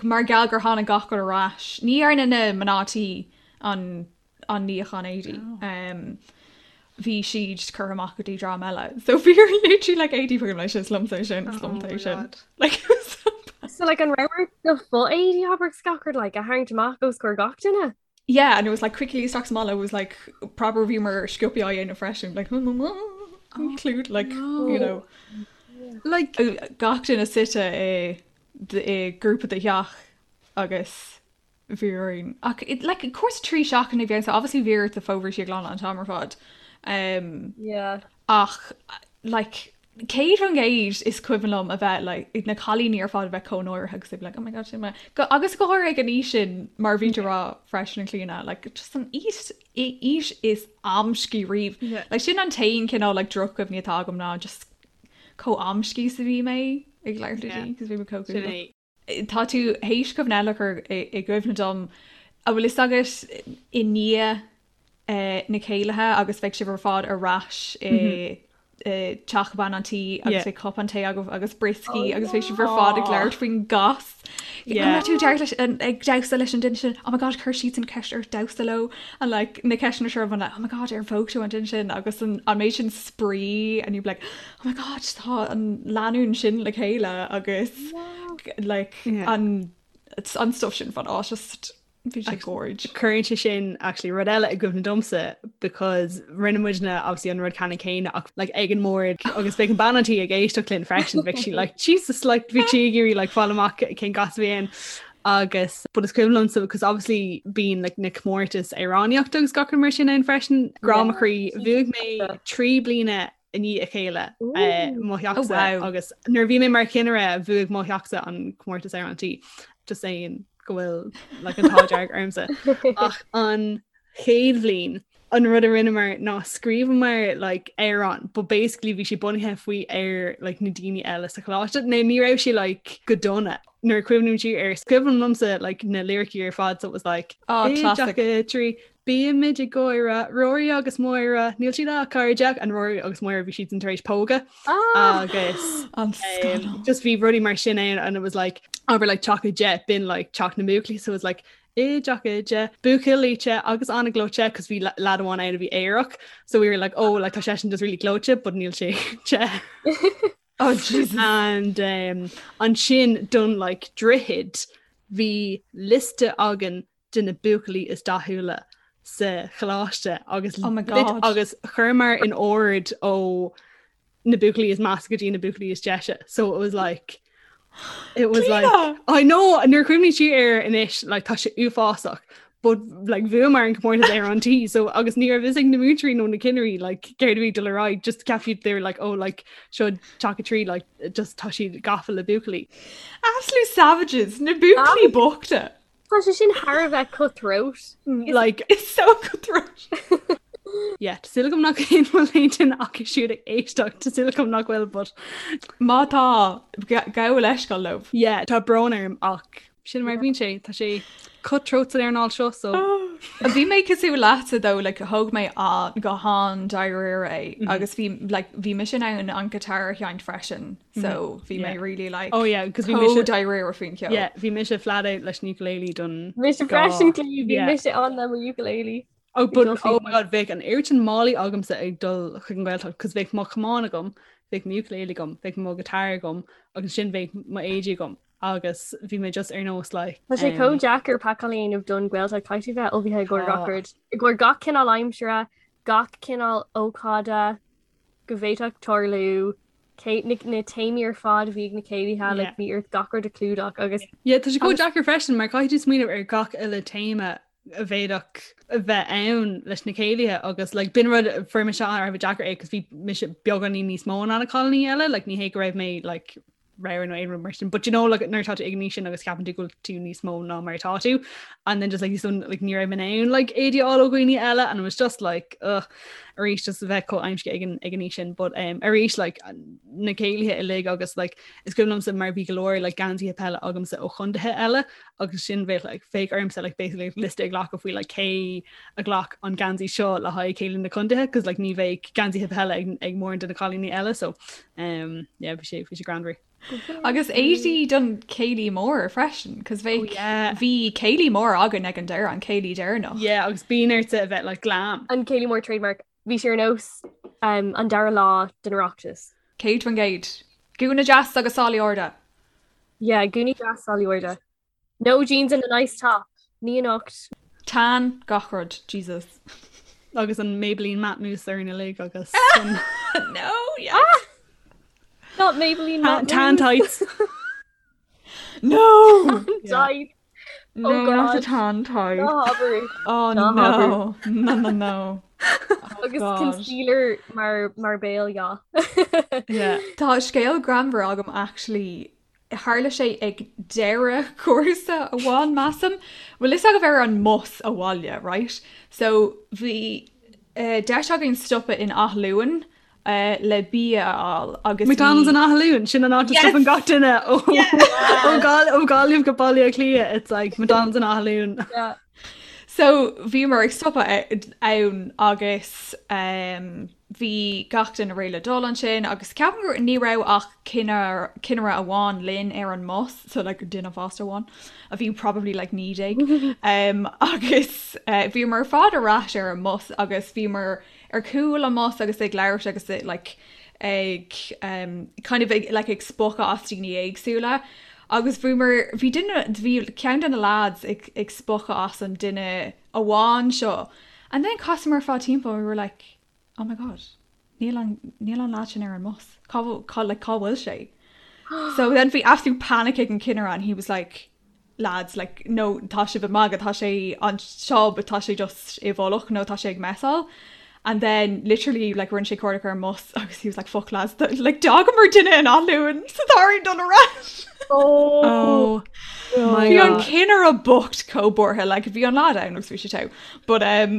mar gheall gur tháinig gach rud ar ais, ní dhearna na mná tí an an níochán éadaí. Bhí siad curtha amach go dtí dream eile. So bhí literally like éadaí fucking leis is liomsa sin is liomsa é sin. Like it was so bad. So like an raibh ort do fho-éadaí abair is gach rud like a tharraingt amach os comhair gach duine? Yeah, and it was like quickly isteach sa mála it was like proper bhí mar sciobthaí á dhéanamh freisin like include like you know like gach duine suite i i grúpa de theach agus bhí orainn. Ach it, like, cúrsa 3 seachtaine a bhí ann, so obviously bhí ort do fobhrístí a ghlanadh an t-am ar fad. Um, Yeah. ach, like, 100% is cuimhin liom a bheith, like, na cailíní ar fad a bheith chomh náirithe agus they'd be like, oh my god, sin mé. Go, agus go háirithe ag an aois sin, mar bhí tú ag rá freisin a Chlíona, like, just an aois, aois is amscaí riamh. Yeah. Like, sin an t-aon cineál, like, drochchuimhní atá agam ná just chomh amscaí is a bhí mé ag labhairt le Yeah. daoine, 'cause bhí mé chomh Sin cúthalach. é. Tá tú théis cuimhne eile a chur i gcuimhne dom. An bhfuil fhios agat i ndiaidh na céilithe agus bheidh sibh ar fad ar ais i teach bean an tí agus beidh cupán tae agaibh agus brioscaí agus beidh sibh ar fad ag labhairt faoin gcas. An raibh tú ag damhsa leis an duine sin? Oh my god, chuir siadsan ceist ort damhsa leo and like na ceisteanna seo like oh my god ar phóg tú an duine sin agus an méid sin spraoi and you'd be like oh my god tá an lánúin sin le chéile agus like an an stuff sin fan á just bhí sé gorge. Cuireann sé sin actually rud eile i gcuimhne domsa because rinne muidne obviously an rud ceannann céanna ach like ag an mbord agus bheadh an bean an tí ag éisteacht linn freisin bheadh sí like Jesus like bhí sí ag iarraidh like fáil amach cén gas a bhí ann agus but is cuimhin liomsa because obviously bíonn like na comórtais amhránaíochta agus gach rud mar sin ann freisin grá mo chroí bhuaigh mé 3 bliana i ndiaidh a chéile mo theachsa agus nuair a bhí mé mar chinnire bhuaigh mo theachsa an comórtas ar an tí just saying go bhfuil like, an t-ádh dearg ormsa. Ach an chéad bhliain an rud a rinneamar ná scríobhamar like, amhrán, but basically bhí sé bunaithe faoi ar like, na daoine eile sa choláiste. Nó ní raibh sé like, go dona. Nuair a cuimhním siar air, is cuimhin liomsa like, na liricí ar fad so it was like oh, classic. 3 Bímid ag gáire, Rory agus Máire, níl siad ach cairde, and Rory agus Máire bhí siad tar éis pógadh agus An scannal. just bhí rudaí mar sin ann and it was like abair like teach 10 b'in like teach na mbuachaillí so it was like. i dteach oide, buachaillí te agus an-ghleoite cos bhí lad amháin ann a bhí aerach so we were like oh like tá seisean just really gleoite but níl sé te. Oh Jesus. And um, ansin don like droichead bhí liosta againn de na buachaillí is dathúla sa choláiste agus Oh my God. agus chuireamar in ord ó na buachaillí is measa go dtí na buachaillí is deise. So it was like it was like Clíona! I know nuair a chuimhním siar air anois like tá sé uafásach but like bhuamar an comórtas ar an tí so agus ní raibh fhios ag na múinteoirí nó na cinnirí like céard a bhí ag dul ar aghaidh just ceap siad they were like oh like seo teach a 3 like just tá siad gafa le buachaillí. Absolute savages, na buachaillí bochta. Tá sé sin thar a bheith cutthroat. Like It's so cutthroat. yeah, tá súil agam nach aon bhfuil aon duine acu siúd ag éisteacht, tá súil agam nach bhfuil, but Má tá, gabh leithscéal leo. yeah, tá brón orm ach sin mar a bhíonn sé, tá sé cutthroat san earnáil seo so. Bhí mé cosúil leatsa though, like thóg mé an go han-dáiríre é agus bhí like bhí mise in ann an guitar a sheinnt freisin. So bhí mé really like Oh yeah, cos bhí chomh mise dáiríre faoin cheol. Yeah, bhí mise flat out leis an ukulele don Mise freisin Clí, bhí mise ann le mo ukulele. Oh but oh my god, bheadh an oiread sin málaí agamsa ag dul chuig an Ghaeltacht cos bheadh mo chamán agam, bheadh mo ukulele agam, bheadh mo guitar agam agus ansin bheadh mo éadaí agam agus bhí mé just ar nós like Tá sé chomh deacair pacáil a dhéanamh don Ghaeltacht, caithfidh tú bheith ullmhaithe i gcomhair gach rud, i gcomhair gach cineál aimsire, gach cineál ócáide go bhféadfadh tarlú. cé na na téamaí ar fad a bhí ag na céilithe, like bhí ort gach rud a chlúdach agus. Yeah, tá sé chomh deacair freisin mar caithfidh tú smaoineamh ar gach uile téama a bhféadfadh a bheith ann leis na céilithe agus like b'in rud a fuair mise an-, a deacair é cos bhí mise beagáinín níos mó ná na cailíní eile, like ní hé go raibh mé like ramhar nó aon rud mar sin, but you know like nuair atá tú ag an aois sin agus ceapann tú go bhfuil tú níos mó ná mar atá tú and then just like so like ní raibh mé in ann like éadaí a fháil ó dhaoine eile and it was just like ugh arís just a bheith chomh aimsithe ag an ag an aois sin but um, arís like na céilithe uilig agus like is cuimhin liomsa mar bhí go leor like geansaithe peile agamsa ó chontaetha eile agus sin bheadh like bheadh ormsa like basically liosta a ghlacadh faoi like cé a ghlac an geansaí seo le haghaidh céilí na contaetha cos like ní bheadh geansaithe peile ag, ag mórán de na cailíní eile so um, yeah, bhí sé bhí sé greannmhar. Agus éadaí don céilí mór freisin, cos bheadh, Oh yeah. bhí céilí mór againn ag an deireadh, an céilí deireanach. Yeah, agus bíonn ortsa a bheith like glam. An céilí mór trademark. Bhí sé ar nós um, an dara lá den Oireachtas. 100%. Gúna deas agus sálaí arda. Yeah, gúnaí deas sálaí arda. No jeans and a nice top. Ní anocht. Tan gach rud, Jesus. Agus an Maybelline Matte Mousse orainn uilig agus an No, yes. Ah! Not Maybelline Matte Tan tights. No! Tight. No, Oh not the God. tan tight. Ná habair. Oh Ná habair. no. No, no, no. Oh Agus God. concealer mar mar béal, yeah. Yeah. Tá scéal greannmhar agam actually Tharla sé ag deireadh cúrsa amháin, measaim. Bhfuil fhios agaibh ar an mbus abhaile, right? So bhí deis againn stopadh in Áth Luain le bia a fháil agus bhí. McDonald's in Áth Luain, sin an áit a stopann gach duine ó ó Gaillimh go Baile Átha Cliath, it's like McDonald's in Áth Luain. Yeah. So bhíomar ag stopadh ann agus bhí gach duine réidh le dul ansin agus ceapaim gur ní raibh ach cinnire amháin linn ar an mbus, so like duine fásta amháin a bhí probably like 19 um, agus uh, bhíomar ar fad ar ais ar an mbus agus bhíomar ar chúl an mbus agus ag labhairt agus like ag um, kind of ag, like, ag spochadh as daoine éagsúla agus bhíomar bhí duine bhí ceann de na lads ag, ag spochadh as an duine amháin seo and then chasamar ar fad timpeall and we were like oh my god níl an níl an lad sin ar an mbus cá cá like cá bhfuil sé so then bhí absolute panic ag an cinnire and he was like lads like no tá sibh ag magadh tá sé anseo but tá sé just i bhfolach nó tá sé ag messáil and then literally like rinne sé cuardach ar an mbus agus he was like fuck lads like d'fhágamar duine in Áth Luain so tá orainn dul ar ais. Oh my Bhí an God. cinnire bocht chomh buartha like bhí an lad ann agus bhí sé togha but um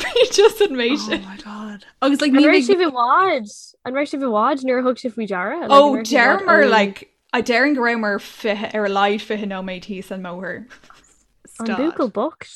bhí just an méid Oh sin. my God. Agus like An ní raibh bheidh sibh i bhfad? An raibh sibh i bhfad nuair a thug sibh faoi deara? Like, Oh an raibh sibh i bhfad deireamar ón like I déarfainn go rabhamar 20 ar a laghad 20 nóiméad thíos an mbóthar. An stad. buachaill bocht?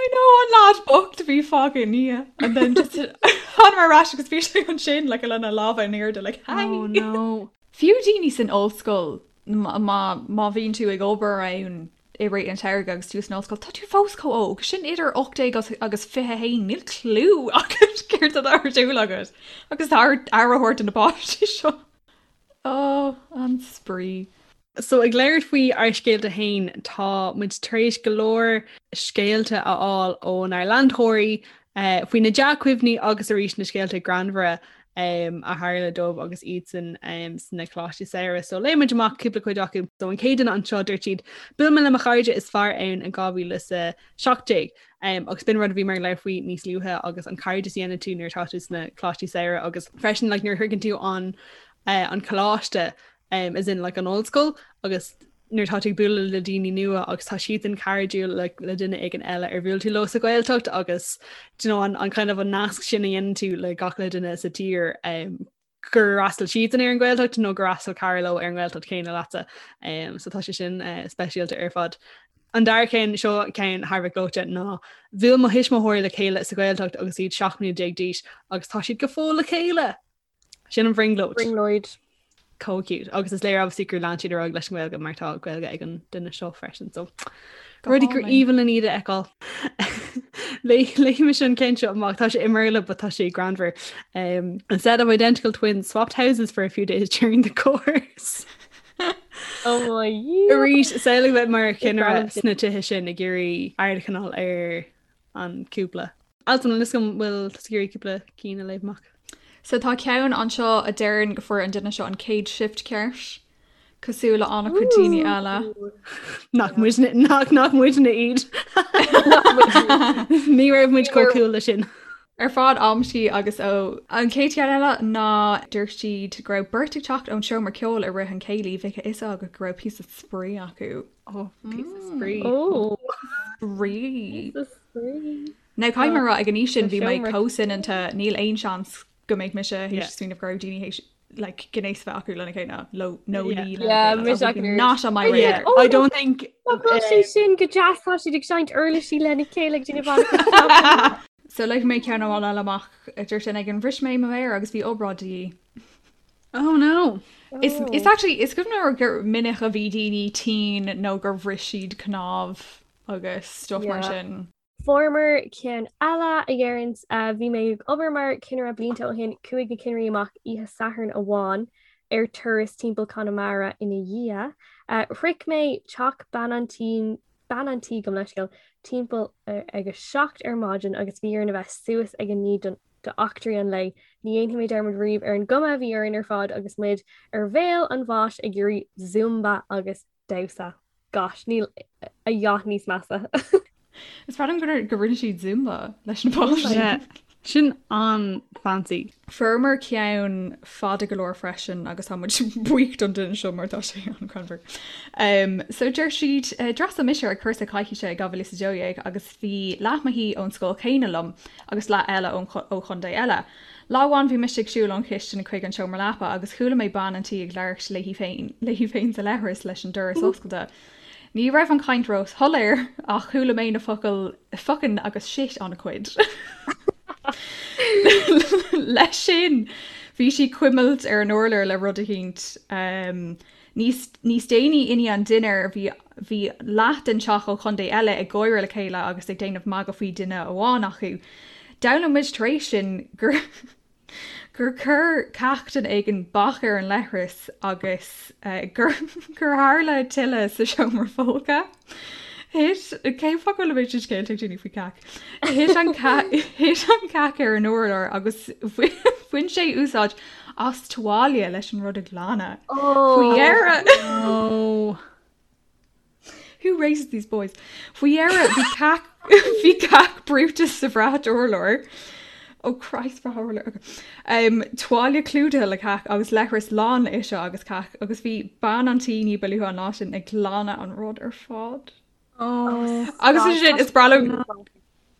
I know an lad bocht a bhí fágtha i ndiaidh and then just thánamar ar ais agus bhí sé ansin like lena lámha in airde like hi. Oh no. Fiú daoine san ollscoil má má bhíonn tú ag obair ann. i rith an tsamhraidh agus tú san ollscoil, tá tú fós chomh óg, sin idir 18 agus 21, níl clue agat céard atá ar siúl agat agus tá ort aire a thabhairt do na páistí seo. Ó, an spraoi. So ag labhairt faoi ár scéalta féin, tá muid tar éis go leor scéalta a fháil ónár leantóirí faoi na dea-chuimhní agus arís na scéalta greannmhara a tharla dóibh agus iadsan sna coláistí samhraidh. So léifidh muid amach cúpla cuid acu. So an chéad duine anseo dúirt siad, Bhuail mé le mo chairde is fearr ann in 2017 agus b'in rud a bhí mé ag labhairt faoi níos luaithe agus an cairdeas a dhéanann tú nuair atá tú sna coláistí samhraidh agus freisin like nuair a shroicheann tú an an coláiste as in like an ollscoil agus nuair atá tú ag bualadh le daoine nua agus tá siadsan cairdiúil le, le duine éigin eile ar bhuail tú leo sa Ghaeltacht agus do you know, an, an kind of an nasc sin a dhéanann tú le gach uile duine sa tír um, gur fhreastail siadsan ar an Ghaeltacht nó gur fhreastail cara leo ar an nGaeltacht chéanna leatsa. Um, so tá sé sin uh, speisialta ar fad. An dara ceann seo ceann thar a bheith gleoite ná bhuail mo thuismitheoirí le chéile sa Ghaeltacht agus iad 17 mbliana d'aois agus tá siad go fóill le chéile. Sin an bhrionglóid. Brionglóid. Chomh cute. Agus is léir obviously gur lean siad ar aghaidh leis an nGaeilge mar tá Gaeilge ag an duine seo freisin. So rudaí gur aoibhinn linn iad a fheiceáil. Léifidh mise an ceann seo amach tá sé i mBéarla but tá sé greannmhar. Um, a set of identical twins swapped houses for a few days during the course. Oh my Arís samhlaigh bheith mar chinnire sna tithe sin ag iarraidh aird a choinneáil ar an cúpla. Altan, an bhfuil an bhfuil tusa ag iarraidh cúpla cinn a léamh amach. So tá ceann anseo a deireann go fuair an duine seo an chéad shift ceart, cosúil le an-chuid daoine eile. Nach muidne nach nach muidne iad. Ní raibh muid chomh cool leis sin. Ar fad amscaí agus ó. An chéad cheann eile ná dúirt siad go raibh beirt ag teacht ón seomra ceoil i rith an chéilí, bheadh a fhios agat go raibh píosa spraoi acu. Ó, píosa spraoi. Ó. Spraoi. Píosa spraoi. Now caithfidh mé a rá ag an aois sin bhí mé chomh soineanta níl aon seans go mbeadh mise théis smaoineamh go raibh daoine théis like gnéas a bheith acu lena chéile lo nó Yeah. ní lena Yeah, chéile. mise That would be acu not on my radar. Oh, I don't think Tá sé sin go deas tá siad ag seinnt uirlisí lena chéile ag déanamh an- So léifidh mé ceann amháin eile amach a dúirt duine éigin bhris mé mo mhéar agus bhí obráid de dhíth. Oh no. Is is actually is cuimhin liom gur minic a bhí daoine tinn nó gur bhris siad cnámh agus stuff mar Yeah. sin. Fuaireamar ceann eile a dheireanns, bhí mé ag obair mar chinnire blianta ó shin, chuaigh na cinnirí amach oíche Sathairn amháin ar turas timpeall Conamara ina dhiaidh. Shroich mé teach bean an tí, bean an tí gabh mo leithscéal, timpeall ag a 7 ar maidin agus bhí orainn a bheith suas ag a 9 don d'eachtraí an lae. Ní dhéanfaidh mé dearmad riamh ar an gcuma a bhí orainn ar fad agus muid ar bhéal an bháis ag iarraidh zumba agus damhsa. Gosh, níl a dhath níos measa. Is breá liom gur go rinne siad Zumba leis na páistí. Yeah. Sin an-fancy. Fuaireamar ceann fada go leor freisin agus tá muid buíoch don duine seo mar tá sé an-ghreannmhar. Um, so deir siad uh, d'fhreastail mise ar cúrsa coicíse i 2012 agus bhí leath mo thí ón scoil chéanna liom agus leath eile ón ó chontae eile. Lá amháin bhí mise ag siúl ón chistin chuig an seomra leapa agus chuala mé bean an tí ag labhairt léi féin léi féin sa leithreas leis an doras oscailte. Ní raibh an chaint róshoiléir ach chuala mé na focail fucking agus shit an-chuid. Leis sin bhí sí ag cuimilt ar an urlár le rud eicínt. Um, Níos níos déanaí i ndiaidh an dinnéir bhí bhí leath den teach ó chontae eile ag gáire le chéile agus ag déanamh magadh faoi duine amháin acu. D'fhoghlaim muid tar éis sin gur gur chuir cac duine éigin bac ar an leithreas agus gur gur tharla tuile sa seomra folctha. Thit cén fáth go bhfuil an méid sin scéalta ag daoine faoi cac? Thit an thit an cac ar an urlár agus bhain sé úsáid as tuáille leis an rud a ghlanadh. Faoi dheireadh. Oh. Who raises these boys? Faoi dheireadh bhí cac bhí cac brúite sa bhrat urláir. Oh Christ brat urláir. Okay. Um, tuáille clúdaithe le cac agus leithreas lán le uisce agus cac agus bhí bean an tí ní ba luaithe an lá sin ag glanadh an rud ar fad. Oh. Agus is sin is breá liom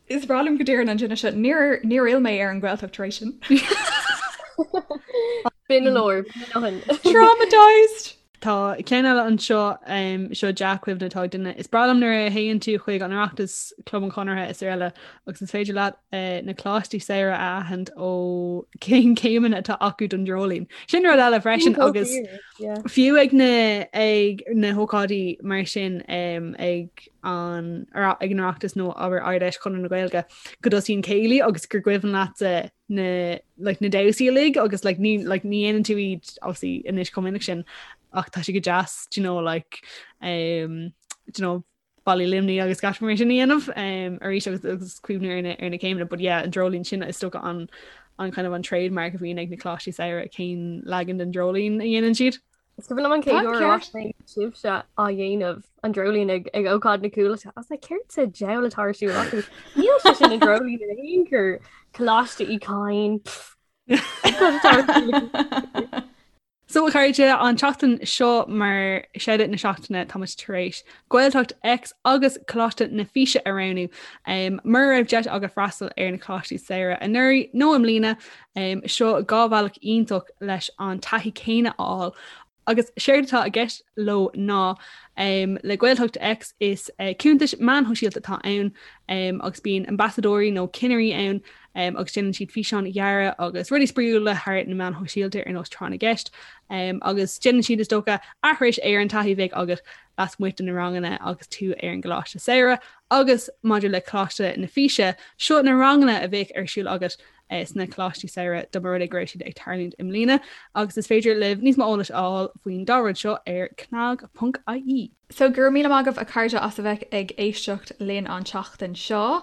is breá liom go deireann an duine seo níor níor fhill mé ar an Ghaeltacht tar éis sin. B'in go leor. B'in a ndóthain. Traumatized! Tá ceann eile anseo, seo dea-chuimhne atá ag duine. Is breá liom nuair a théann tú chuig an Oireachtas, Club an Chonartha is araile agus is féidir leat na coláistí samhraidh a aithint ó cén céimeanna atá acu don dreoilín. Sin rud eile freisin agus fiú ag na ag na hócáidí mar sin ag an ag an Oireachtas nó abair Ard-Fheis Chonradh na Gaeilge go dtosaíonn céilí agus gur cuimhin leatsa na like na damhsaí uilig agus like ní like ní dhéanann tú iad obviously anois chomh minic sin ach tá sé go deas do you know like um do you know Ballaí Luimnigh agus gach mar sin a dhéanamh um arís agus agus cuimhniú ar na ar na céimeanna but yeah an dreoilín sin is dócha an an kind of an trademark a bhíonn ag na coláistí samhraidh cén leagan den dreoilín a dhéanann siad. Is cuimhin liom an chéad uair a bhfaca mé sibhse á dhéanamh an dreoilín ag ag ócáid na Cúlais. I was like, céard sa diabhal atá ar siúl acu? Níl sé sin an dreoilín in aon chor. Coláiste Uí Chadhain. Cad atá ar siúl acu? So a chairde, an tseachtain seo mar Shout-Out na Seachtaine táimid tar éis Gaeltacht X agus Coláiste na Físe a roghnú. Mura raibh deis agat freastal ar na Coláistí Samhraidh anuraidh nó i mbliana, seo 2 bhealach iontach leis an taithí céanna a fháil. Agus séard atá i gceist leo ná, le Gaeltacht X is cuntais meáin shóisialta atá ann agus bíonn ambasadóirí nó cinnirí ann agus déanann siad físeáin ghearra agus rudaí spraíúla thar na meáin shóisialta ar nós tráth na gceist agus déanann siad is dócha aithris ar an taithí a bheadh agat lasmuigh de na ranganna agus tú ar an gcoláiste samhraidh agus maidir le Coláiste na Físe, seo na ranganna a bheadh ar siúl agat sna coláistí samhraidh dá mba rud é go raibh siad ag tarlúint i mbliana agus is féidir libh níos mó eolais a fháil faoin dá rud seo ar cnag.ie. So go raibh míle maith agaibh a chairde as a bheith ag éisteacht linn an tseachtain seo.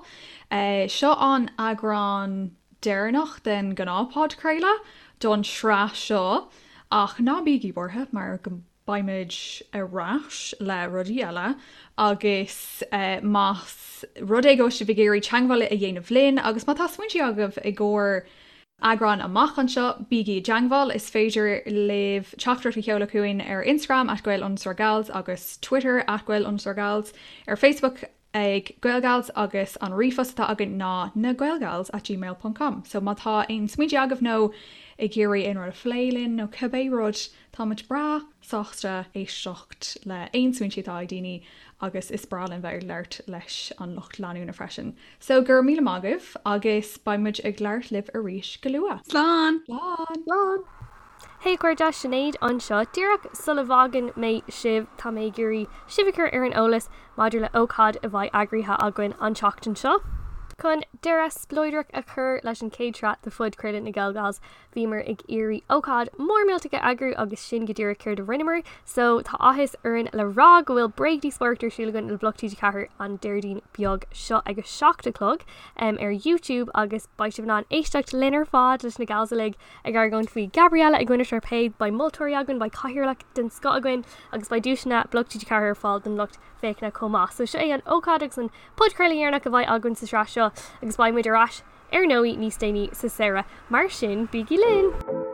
Seo an eagrán deireanach den ghnáthphodchraoladh don sraith seo ach ná bígí buartha mar go beimid ar ais le rudaí eile agus más rud é go bhfuil sibh ag iarraidh teagmháil a dhéanamh linn agus má tá smaointe agaibh i gcomhair eagrán amach anseo, bígí i dteagmháil. Is féidir libh teachtaireacht a sheoladh chugainn ar Instagram at gael underscore gals agus Twitter at gael underscore gals, ar Facebook ag Gaelgals agus an ríomhphost atá againn ná nagaelgals at gmail ponc com. So má tá aon smaointe agaibh nó ag iarraidh aon rud a phlé linn nó cibé rud, táimid breá sásta éisteacht le aon smaointe atá ag daoine agus is breá linn bheith ag labhairt leis an lucht leanúna freisin. So go raibh míle maith agaibh agus beidh muid ag labhairt libh arís go luath. Slán! Slán! Slán! Hey a chairde, Sinéad anseo. Díreach sula bhfágann mé sibh, tá mé ag iarraidh sibh a chur ar an eolas maidir le ócáid a bheidh eagraithe againn an tseachtain seo. Chun deireadh spleodrach a chur leis an chéad sraith de phodchraoladh na GaelGals, bhíomar ag iarraidh ócáid mór millteach a eagrú agus sin go díreach céard a rinneamar. So, tá áthas orainn le rá go bhfuil bréagdhíospóireacht ar siúl againn le Bloc TG4 an Déardaoin beag seo ag a 7 a chlog ar YouTube agus beidh sibh in ann éisteacht linn ar fad leis na gals uilig ag argóint faoi Gabriella i gcoinne Sharpay, beidh moltóirí againn, beidh cathaoirleach den scoth againn agus beidh duaiseanna Bloc TG4 ar fáil don lucht féachana chomh maith. So seo é an ócáid agus an podchraoladh dheireanach a bheidh againn sa sraith seo agus beidh muid ar ais ar ndóigh níos déanaí sa samhradh. Mar sin, bígí linn!